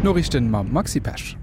D'Noriichten mam Maxi Pesch.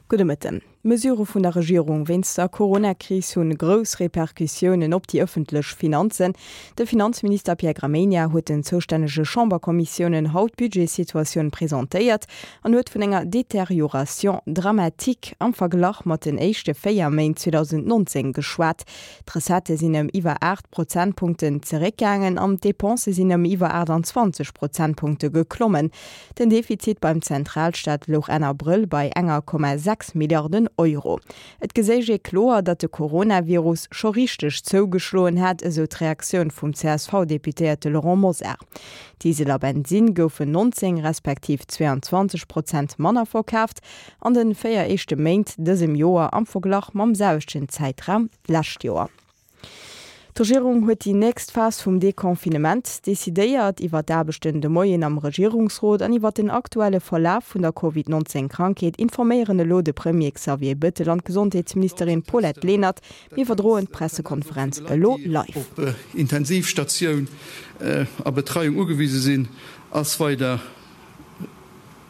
Gudde Mëtten. D'Mesurë vun der Regierung wéinst der Corona-Kris hunn grouss Repercussiounen op déi ëffentlech Finanzen. De Finanzminister Pierre Gramegna huet den zoustännege Chamberkommissiounen haut d'Budgetssituatioun presentéiert an huet vun enger Détérioration dramatique am Verglach mat den éischte 4 Méint 2019 geschwat. D'Recettë sinn ëm iwwer 8 Prozentpunkten zeréckgaangen an d'Depensë sinn ëm iwwer 28 Prozentpunkte geklommen. Den Defizit beim Zentralstaat louch Enn Abrëll bei enger Komma 6 Milliarden Euro. Et geséich ee kloer, datt de Coronavirus scho richteg zougeschloen hätt, esou d'Reaktioun vum CSV-Deputéierte Laurent Mosar. Diesel a Bensinn goufen 19 respektiv 22 Prozent manner verkaaft an de 4 éischte Méint dësem Joer am Verglach mam selwechten Zäitraum d'lescht Joer. D'Regierung huet déi nächst Phas vum Deconfinement decidéiert. Iwwer d'Aarbechten de Moien am Regierungsrot an iwwer den aktuelle Verlaf vun der Covid 19 Krankheet informéieren elo de Premier Xavier Bettel an d'Gesondheetsministerin Paulette Lenert. Mir iwwerdroen d'Pressekonferenz elo live. Op Intensivstatioun a Betreiung ugewise sinn, ass weider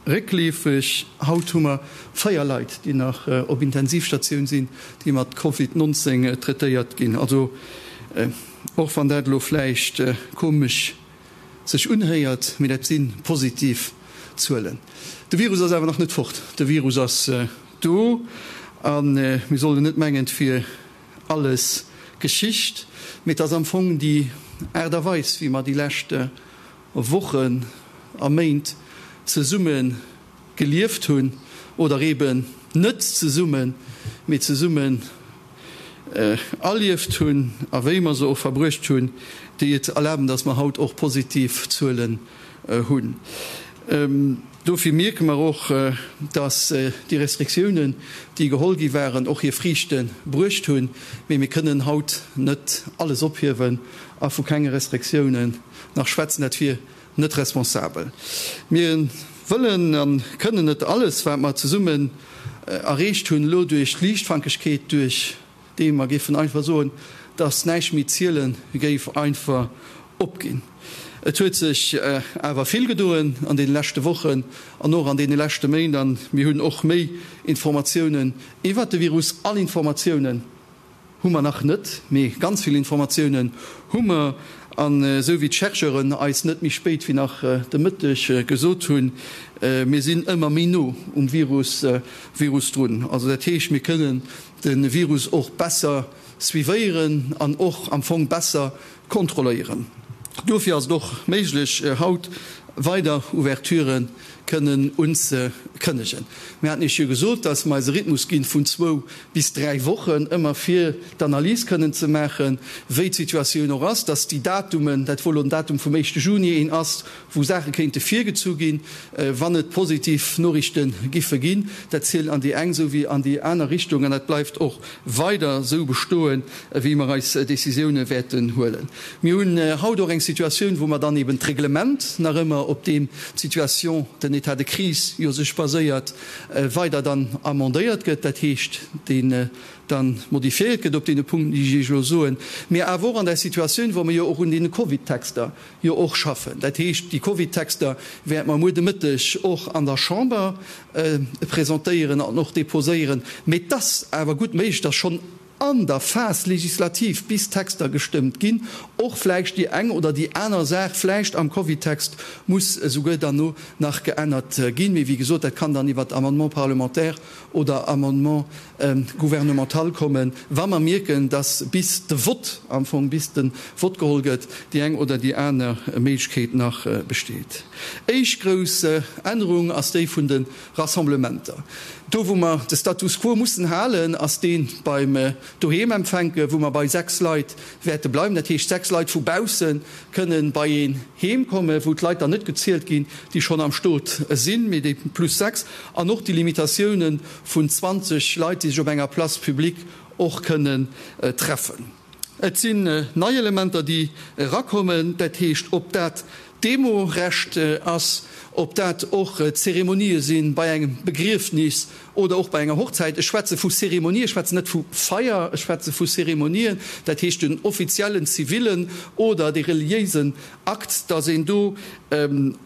Réckleefeg, Haut hu mer 4 Leit, déi nach op Intensivstatioun sinn, déi mat Covid 19 traitéiert ginn. Also och wann dat elo vläicht komesch sech unhéiert, mee dat si positiv Zuelen. De Virus ass awer nach net fort. De Virus ass do a mir sollen net mengen, et wier alles Geschicht. Mee et ass am Fong déi Aart a Weis, wéi mer déi lescht Wochen a Méint zesumme gelieft hunn, oder eben net zesummen, mee zesummen erlieft hunn a wéi mer se och verbruecht hunn, déi et erlaben, dass mer haut och positiv Zuelen hunn. Dofir mierke mer och, dass déi Restriktiounen, déi geholl gi waren, och hir Friichte bruecht hunn. Mee mir kënnen haut net alles ophiewen a vu kenge Restriktiounen nach schwätzen, dat wier net responsabel. Mir wëllen a kënnen net alles, wat mer zesummen erreecht hunn, elo duerch d'Liichtfankegkeet, duerch déi mer géifen einfach soen, dass näischt méi ziele géif, einfach opginn. Et huet sech awer vill gedoen an deene leschte Wochen an och an deene leschte Méint a mir hunn och méi Informatiounen iwwert de Virus. All Informatiounen Hu mer nach net, mee ganz vill Informatiounen hu mer. An esou wéi d'Chercheuren eis net méi spéit wéi nach de Mëtteg gesot hunn, mir sinn ëmmer méi no um Virus Virus drun. Also dat heescht, mir kënnen de Virus och besser suivéieren an och am Fong besser kontrolléieren. Dofir ass et och méiglech, haut weider Ouverturë kënnen unzekënnegen. Mir haten Iech jo gesot, dass mer eis e Rhythmus ginn vun zwou bis 3 Wochen, ëmmer fir d'Analys kënnen ze maachen, wéi d'Situatioun och ass, dass déi Datumen, dat wou elo den Datum vum éischte Juni een ass, wou Saache kéinte virgezu ginn, wann et positiv Noriichte giffe ginn. Dat zielt an déi eng esou wéi an déi aner Richtung an dat bleift och weider esou bestoen, wéi mer eis Décisioune wäerten huelen. Mir hunn haut och eng Situatioun, wou mer dann eben d'Reglement nach ëmmer, op deem d'Situation, den État de crise jo sech baséiert, weider dann amendéiert gëtt, dat heescht, deen dann modifiéiert gëtt op deene Punkten, déi ech Iech elo soen, mä awer och an der Situatioun, wou mer jo och un deene Covid-Texter jo och schaffen. Dat heescht, déi Covid-Texter wäerte mer muer de Mëtteg och an der Chamber presentéieren an och déposéieren. Mä et ass awer gutt méiglech, dass schonn an der Phase législative, bis d'Texter gestëmmt ginn, och vläicht déi eng oder déi aner Saach vläicht am Covid-Text muss esouguer dann no nach geännert ginn. Mee wéi gesot, dat kann dann iwwert Amendement parlementaire oder Amendement gouvernemental kommen, wa mer mierken, dass bis de Vott, am Fong bis de Vott geholl gëtt, déi eng oder déi aner Méiglechkeet nach besteet. Éischt grouss Ännerung ass déi vun de Rassemblementer. Do wou mer de Status quo mussen halen, ass dee beim Doheemempfänken, wou mer bei 6 Leit wäerte bleiwen. Dat heescht, 6 Leit vu bausse kënnen bei een heem kommen, wou d'Leit dann net gezielt ginn, déi schonn am Stot sinn, mee déi plus 6. An och déi Limitatiounen vun 20 Leit, déi sech op enger Place publique och kënnen treffen. Et sinn nei Elementer, déi erakommen, dat heescht, ob dat. Demorecht ass, ob dat och Zeremonië si bei engem Begriefnis oder och bei enger Hochzäit. Ech schwätze vu Zeremonie, ech schwätzen net vu Feier, ech schwätze vu Zeremonien, dat heescht den offiziellen zivilen oder dee reliéisen Akt, dass een do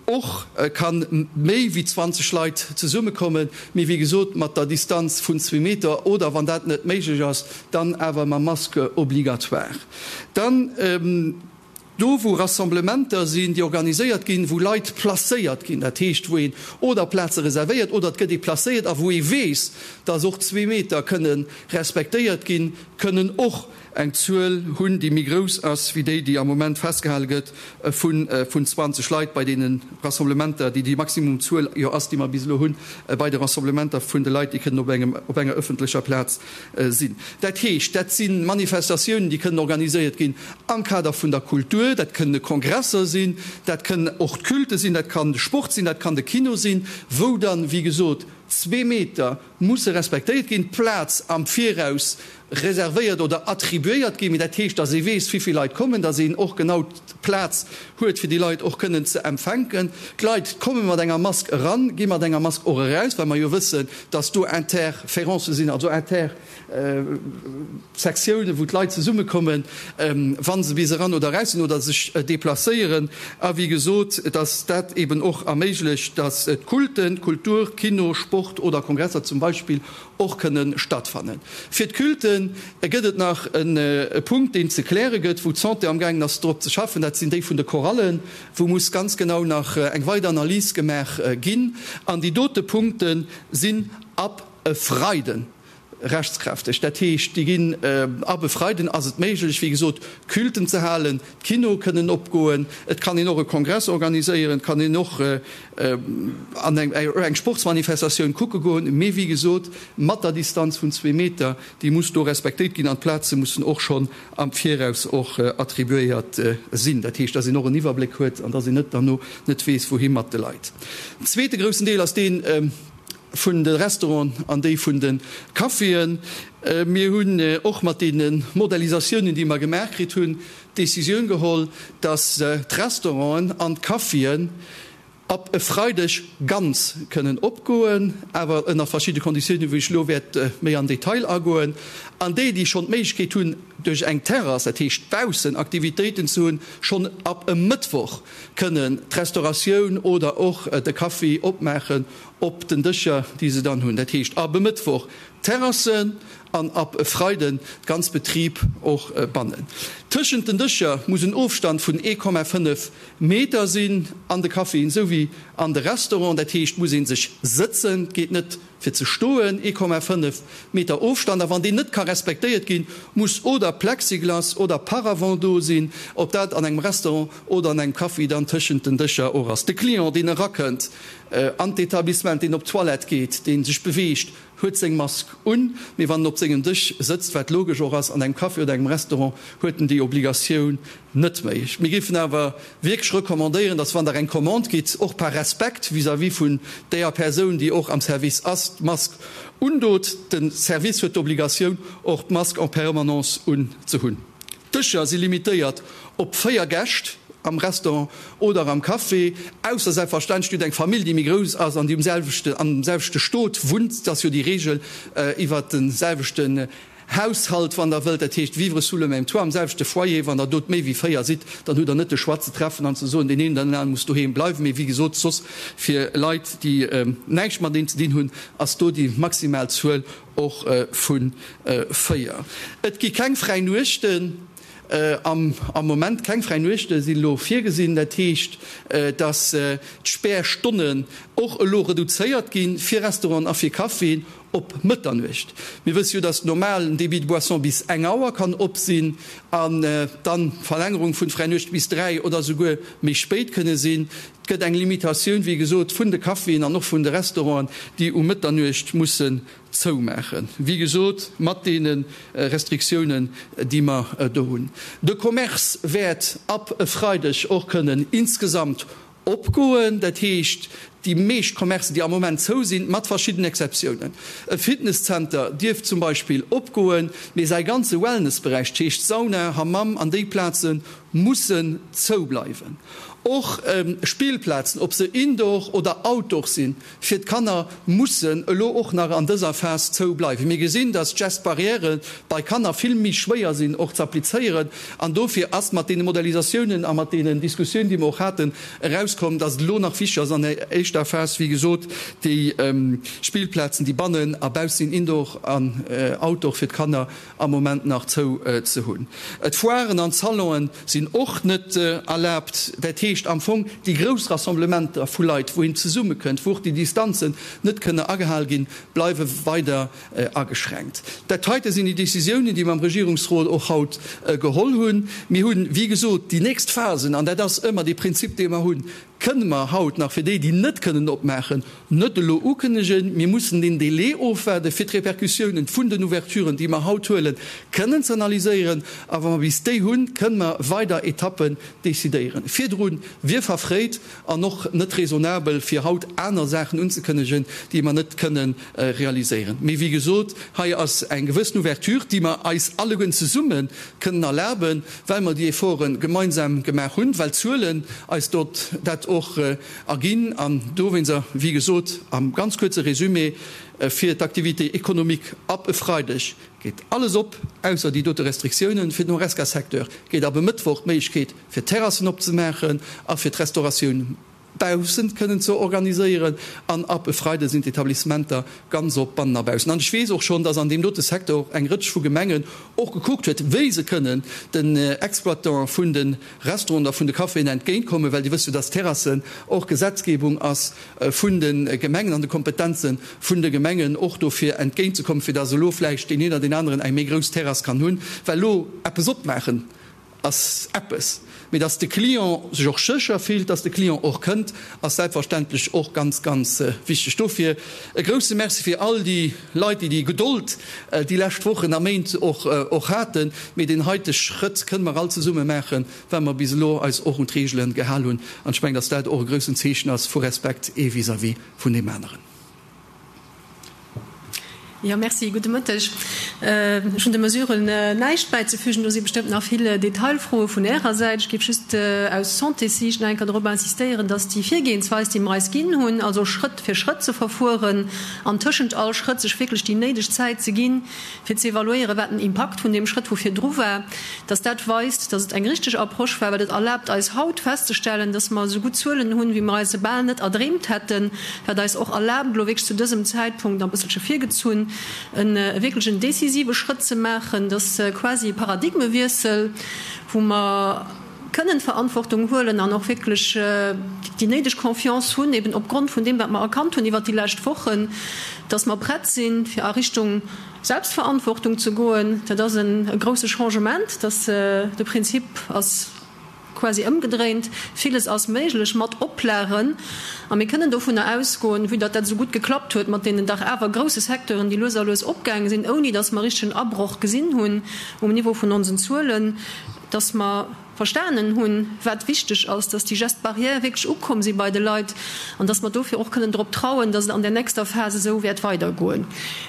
och ka méi wéi 20 Leit zesummekommen, mee wéi gesot mat der Distanz vun zwee Meter oder, wann dat net méiglech ass, dann awer mam Masque obligatoire. Dann do, wou Rassemblementer sinn, déi organiséiert ginn, wou Leit placéiert ginn, dat heescht, wou een oder Plaze reservéiert oder et gëtt ee placéiert a wou ee weess, dass och zwee Meter kënne respektéiert ginn, kënnen och eng Zuel hunn, déi méi grouss ass wéi déi, déi am Moment festgehale gëtt vun 20 Leit bei deene Rassemblementer, déi déi maximum Zuel jo ass, déi mer bis elo hunn bei de Rassemblementer vun de Leit, déi kënnen op engem, op enger öffentlecher Plaz sinn. Dat heescht, dat si Manifestatiounen, déi kënnen organiséiert ginn am Kader vun der Kultur, dat kënne Kongresser sinn, dat kënnen och d'Culte sinn, dat kann de Sport sinn, dat kann de Kino sinn, wou dann, wéi gesot, zwee Meter musse respektéiert ginn, d'Plaz am Viraus reservéiert oder attribuéiert ginn, mee dat heescht, dass ee weess, wéi vill Leit kommen, dass een och genau d'Plaz huet, fir déi Leit och kënnen ze empfänken. D'Leit komme mat enger Mask eran, gi mat enger Mask och eraus, well mer jo wëssen, dass do Interférencë sinn, also Intersektiounen, wou d'Leit zesummekommen, wa se bis eran oder eraus sinn oder sech deplacéieren. A wéi gesot, dass dat eeben och erméiglecht, dass d'Culten, Kultur, Kino, Sport oder Kongresser zum Beispill och kënne stattfannen. Fir d'Culte gëtt et nach e Punkt, deen ze kläre gëtt, wou d'Santé amgaangen ass drop ze schaffen, dat sinn déi vun de Chorallen, wou muss ganz genau nach eng weider Analys gemaach ginn. An déi dote Punkte sinn ab e Freiden rechtskräfteg. Dat heescht, déi ginn ab e Freiden ass et méiglech, wéi gesot, Culten ze halen, d'Kinoe kënnen opgoen, et kann een och e Kongress organiséieren, et kann een och an eng Sportsmanifestatioun kucke goen, mee wéi gesot, mat der Distanz vun zwee Meter, déi muss do respektéiert ginn an d'Plaze mussen och schonn am Viraus och attribuéiert sinn. Dat heescht, dass een och en Iwwerbléck huet an dass een net derno net weess, wouhi mat de Leit. Den zweete groussen Deel ass dee vun de Restauranten an déi vun de Caféen. Mir hunn och mat deene Modellisatiounen, déi mer gemaach kritt hunn, d'Décisioun geholl, dass d'Restauranten an d'Caféen ab e Freideg ganz kënnen opgoen, awer ënner verschidde Konditiounen, wou ech elo wäert méi am Detail agoen. An déi, déi schonn d'Méiglechkeet hunn, duerch eng Terrass, dat heescht baussen Aktivitéiten ze hunn, schonn ab e Mëttwoch kënnen d'Restauratioun oder och de Café opmaachen op den Dëscher, déi se dann hunn. Dat heescht ab e Mëttwoch d'Terrassen an ab e Freiden d'ganz Betrib och bannen. Tëschent den Dëscher muss en Ofstand vun 1,5 Meter sinn an de Caféen esou wéi an de Restauranten. Dat heescht, muss ee sech sëtzen, et geet net fir ze stoen, 1,5 Meter Ofstand. A wann deen net ka respektéiert ginn, muss oder Plexiglas oder Paravent do sinn, ob dat an engem Restaurant oder an engem Café dann tëschent den Dëscher och ass. De Client, deen erakënnt an d'Etablissement, deen op d'Toilette geet, dee sech beweegt, huet seng Mask un, mee wann en op sengem Dësch sëtzt, wat logesch och ass an engem Café oder engem Restaurant, huet en déi Obligatioun net méi. Mir géifen awer wierklech recommandéieren, dass wann Der eng Commande gitt, och par Respekt vis-à-vis vun deeër Persoun, déi och am Service ass, d'Mask undot. De Service huet d'Obligatioun, och d'Mask en permanence unzehunn. D'Dëscher si limitéiert op 4 Gäscht am Restaurant oder am Café, ausser selbstverständlech dir hutt eng Famill, déi méi grouss ass an déi um selwechten, am selwechte Stot wunnt. Dat ass jo déi Reegel iwwert de selwechten Haushalt, wann Der wëllt, dat heescht vivre sous le même toit, am selwechte Foyer. Wann Der dot méi wéi 4 sidd, dann hutt Der net de Choix ze treffen an ze soen, deen een oder den anere muss doheem bleiwen. Mee wéi gesot, soss fir Leit, déi näischt mateneen ze dinn hunn, ass do déi maximal Zuel Och vu 4. Et gi keng fräi Nuechten am Moment. Keng fräi Nuechte sinn elo virgesinn. Dat heescht, datt d'Spärstonnen och elo reduzéiert gi fir Restauranten a fir Caféen op Mëtternuecht. Mir wësse jo, datt normal en Débit de boisson bis eng Auer kann op sinn an dann d'Verlängerung vun fräi Nuechte bis 3 oder souguer méi spéit kënne sinn. Et gëtt eng Limitatioun, wéi gesot, vun de Caféen an och vun de Restauranten, déi um Mëtternuecht mussen zoumaachen. Wéi gesot, mat deene Restriktiounen, déi mer do hunn. De Commerce wäert ab e Freideg och kënnen insgesamt opgoen. Dat heescht, Déi meescht Commercen, déi am Moment zou sinn, mat verschiddenen Exceptiounen. E Fitnesszenter dierf zum Beispill opgoen, mee säi ganze Wellnessberäich, dat heescht Sauna, Hammam an déi Plaze mussen zou bleiwen. Och Spillplazen, ob se indoor oder outdoor sinn, fir d'Kanner mussen elo och nach an dëser Phas zou bleiwen. Mir gesinn, dass d'Gestes barrières bei Kanner vill méi schwéier sinn och ze applizéieren an dofir ass mat deene Modellisatiounen a mat deenen Diskussiounen, déi mer och haten, erauskomm, dass et elo nach wichteg ass an der éischter Phas, wéi gesot, déi Spillplazen, déi bannen a bausse sinn, indoor an outdoor, fir d'Kanner am Moment nach zou ze hunn. D'Foiren an d'Salonen sinn och net erlaabt. Dat heescht am Fong déi grouss Rassemblementer vu Leit, wou een zesummekënnt, wou och déi Distanzen net kënne agehal ginn, bleiwe weider ageschränkt. Dat heite sinn déi Décisiounen, déi mer am Regierungsrot och haut geholl hunn. Mir hunn, wéi gesot, déi nächst Phasen, an dat ass ëmmer dee Prinzip, dee mer hunn, kënne mer haut nach fir déi, déi net kënnen opmaachen, net elo ukënnegen. Mir mussen deen Délai ofwaarden, fir d'Repercussiounen vun den Ouverturen, déi mer haut huelen, kënnen ze analyséieren. A wa mer bis déi hunn, kënne mer weider Etappen decidéieren. Virdru wier verfréit an och net raisonnabel, fir haut aner Saachen unzekënnegen, déi mer net kënnen realiséieren. Mee wéi gesot, hei ass eng gewëssen Ouverture, déi mer eis alleguerten zesumme kënnen erlaben, well mer déi Efforte gemeinsam gemaach hunn, well d'Zuelen eis dort dat och erginn. An dowéinster, wéi gesot, am ganz kuerze Résumé, Fir d'Activité économique ab e Freideg geet alles op, ausser déi dote Restriktiounen. Fir den Horesca-Secteur geet ab e Mëttwoch d'Méiglechkeet, fir Terrassen opzemaachen a fir d'Restauratioun baussent kënnen ze organiséieren an ab e Freide sinn d'Etablissementer ganz op, bannen a baussen. An ech weess och schonn, dass an deem dote Secteur och eng Rëtsch vu Gemengen och gekuckt huet, wéi se kënnen den Exploitantë vun de Restauranten a vun de Caféen entgéintkommen, well Dir wësst jo, dass Terrassen och Gesetzgebung ass vun de Gemengen an de Kompetenze vun de Gemengen, och dofir entgéintzekommen, fir dass elo vläicht deen een oder deen aneren eng méi grouss Terrass kann hunn, well elo eppes opmaachen ass eppes, mee dass de Client sech och sécher fillt, dass de Client och kënnt, ass selbstverständlech och ganz, ganz wichteg. Dofir e grouse Merci fir all déi Leit, déi déi Gedold déi lescht Wochen a Méint och haten. Mee deen heite Schrëtt kënne mer all zesumme maachen, well mer bis elo eis och un d'Reegele gehal hunn. An ech mengen, dass dat och e groussen Zeechen ass vu Respekt ee vis-à-vis vun deem aneren. Jo, merci. Gudde Mëtteg. Ech hunn de Mesuren näischt bäizefügen. Do si bestëmmt nach vill Detailfroe vun Ärer Säit. Ech géif just aus Santéssiicht nach eng Kéier drop insistéieren, dass déi Virgehensweis, déi mer eis ginn hunn, also Schrëtt fir Schrëtt ze verfueren an tëschent all Schrëtt sech wierklech déi néideg Zäit ze ginn, fir ze evaluéieren, wat den Impakt vun deem Schrëtt vu virdru war, dass dat weist, dass et eng richteg Approche war, well et erlaabt eis haut festzestellen, dass mer esou gutt Zuelen hunn, wéi mer eis se bal net erdreemt hätten, wat eis och erlaabt, elo wierklech zu dësem Zäitpunkt, a bësselche virgezunn, e wierklech en decisive Schrëtt ze maachen, dass quasi e Paradigmewiessel, wou mer kënnen Verantwortung huelen an och wierklech déi néideg Confiance hunn, eben opgrond vun deem, wat mer erkannt hunn iwwert déi lescht Wochen, dass mer prett sinn, fir a Richtung Selbstverantwortung ze goen. Dat ass e grouse Changement, dass de Prinzip ass quasi ëmgedréint. Villes ass méiglech mat Oplagen. A mir kënnen dovunner ausgoen, vue datt dat esou gutt geklappt huet mat deenen dach awer grouse Secteuren, déi lues a lues opgaange sinn, ouni datt mer richtegen Abroch gesinn hunn um Niveau vun onsen Zuelen, dass mer verstanen hunn, wat wichteg ass, dass déi Gestes barrières wierklech ukomm si bei de Leit an dass mer dofir och kënnen drop trauen, dass et an der nächster Phas esou wäert weidergoen.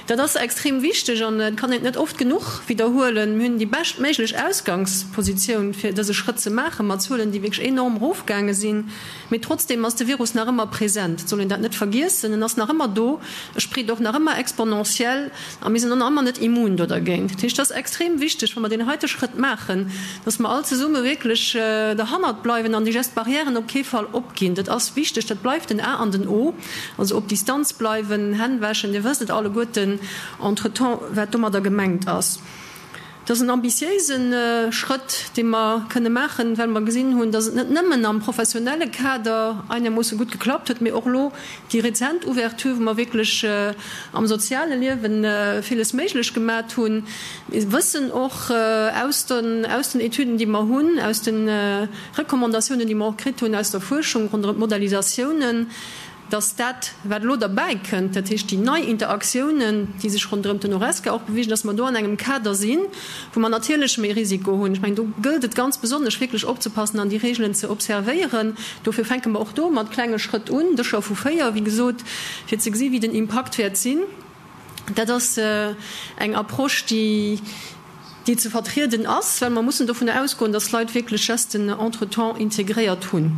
Dat ass extrem wichteg an et kann een et net oft genuch widderhuelen. Mir hunn déi beschtméiglech Ausgangspositioun, fir dëse Schrëtt ze maachen, mat Zuelen, déi wierklech enorm erofgaange sinn. Mee trotzdeem ass de Virus nach ëmmer present. Et soll een dat net vergiessen. En ass nach ëmmer do. E spreet och nach ëmmer exponentiell. A mir sinn och nach ëmmer net immun do dergéint. Dat heescht, et ass extrem wichteg, wa mer deen heite Schrëtt maachen, dass mer all zesumme wierklech derhannert bleiwen an déi Gestes barrièren op kee Fall opginn. Dat ass wichteg. Dat bleift den A an den O. Also op Distanz bleiwen, Hänn wäschen, Dir wësst et alleguerten entretemps, wat domadder gemengt ass. Et ass en ambitiéise Schrëtt, dee mer kënne maachen, well mer gesinn hunn, dass et net nëmmen am professionelle Kader einermoosse gutt geklappt huet, mee och elo déi rezent Ouverture, wou mer wierklech am soziale Liewe villes méiglech gemat hunn. Mir wëssen och aus den aus den Etüden, déi mer hunn, aus de Recommandatiounen, déi mer och kritt hunn aus der Fuerschung ronderëm d'Modellisatiounen. dass dat, wat elo derbäikënnt, dat heescht déi nei Interaktiounen, déi sech ronderëm den Horesca och bewegen, dass mer do an engem Kader sinn, wou mer natierlech méi Risiko hunn. Ech mengen, do gëllt et ganz besonnesch wierklech opzepassen an déi Regeln ze observéieren. Dofir fänke mer och do mat klenge Schrëtt un, Dëscher vu 4, wéi gesot, fir ze gesi wéi den Impakt wäert sinn. Dat ass eng Approche, déi déi ze vertrieden ass, well mer mussen dovunner ausgoen, dass d'Leit wierklech Gesten entretemps integréiert hunn.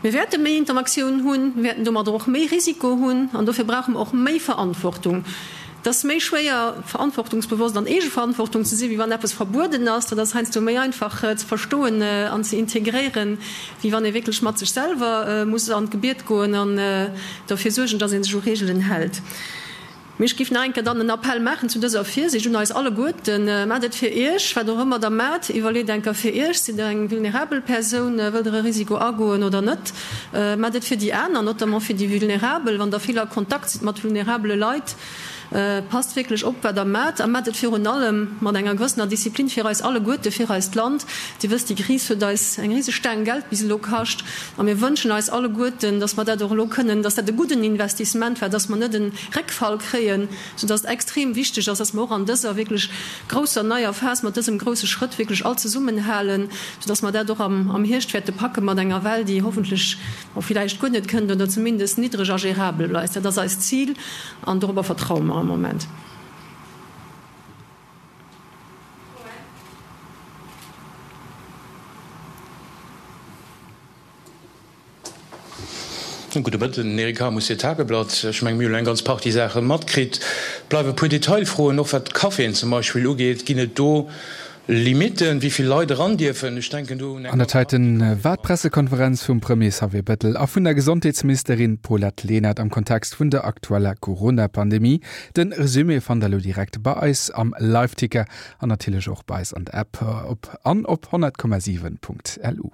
Mir wäerte méi Interaktioun hunn, mir wäerten domadder och méi Risiko hunn an dofir brauche mer och méi Verantwortung. Et ass méi schwéier, verantwortungsbewosst an Eegeverantwortung ze sinn, wéi wann eppes verbueden ass. Dat ass heiansdo méi einfach ze verstoen an ze integréieren, wéi wann ee wierklech mat sech selwer muss an d'Gebiet goen an derfir suergen, dass ee sech u Reegelen hält. Mee ech géif nach eng Kéier dann en Appell maachen zu dëser Virsiicht un eis alleguerten, Maacht et fir Iech, wat och ëmmer Der maacht, iwwerleet eng Kéier fir Iech, Sidd Der eng vulnerabel Persoun, wëllt Der e Risiko agoen oder net? Maacht et fir déi aner, notamment fir déi Vulnerabel, wann Der vill a Kontakt sidd mat vulnerabele Leit. Passt wierklech op, wat Der maacht a maacht et virun allem mat enger gewëssener Disziplin fir eis alleguerte, fir eist Land. Dir wësst, déi Kris huet eis eng riseg Staang Geld bis elo kascht a mir wënschen eis alleguerten, dass mer dat och elo kënnen, dass dat e gudden Investissement war, dass mer net e Réckfall kréien, soudass et extrem wichteg ass, dass mer och an dëser wierklech grousser neier Phas mat dësem grousse Schrëtt wierklech all zesummenhalen, soudass mer dat och am Hierscht wäerte packe mat enger Well, déi hoffentlech, bon, villäicht guer net kënnt oder zumindest niddreg a gérabel bleift. Dat ass eist Zil an dorobber vertraue mer am Moment. Gudde Mëtten, Eric Hamus fir d'Tageblatt. Ech menge mir hunn elo eng ganz Partie Saache matkritt. Et bleiwe e puer Detailfroen, och wat d'Caféen zum Beispill ugeet. Ginn et do Limitten, wéi vill Leit eran dierfen? Ech denken do un eng An ganz dat heiten Partie. war d'Pressekonferenz vum Premier Xavier Bettel a vun der Gesondheetsministerin Paulette Lenert am Kontext vun der aktueller Corona-Pandemie. Den Resumé fannt der elo direkt bei eis am Liveticker an natierlech och bei eis an der App op an op 100,7.lu.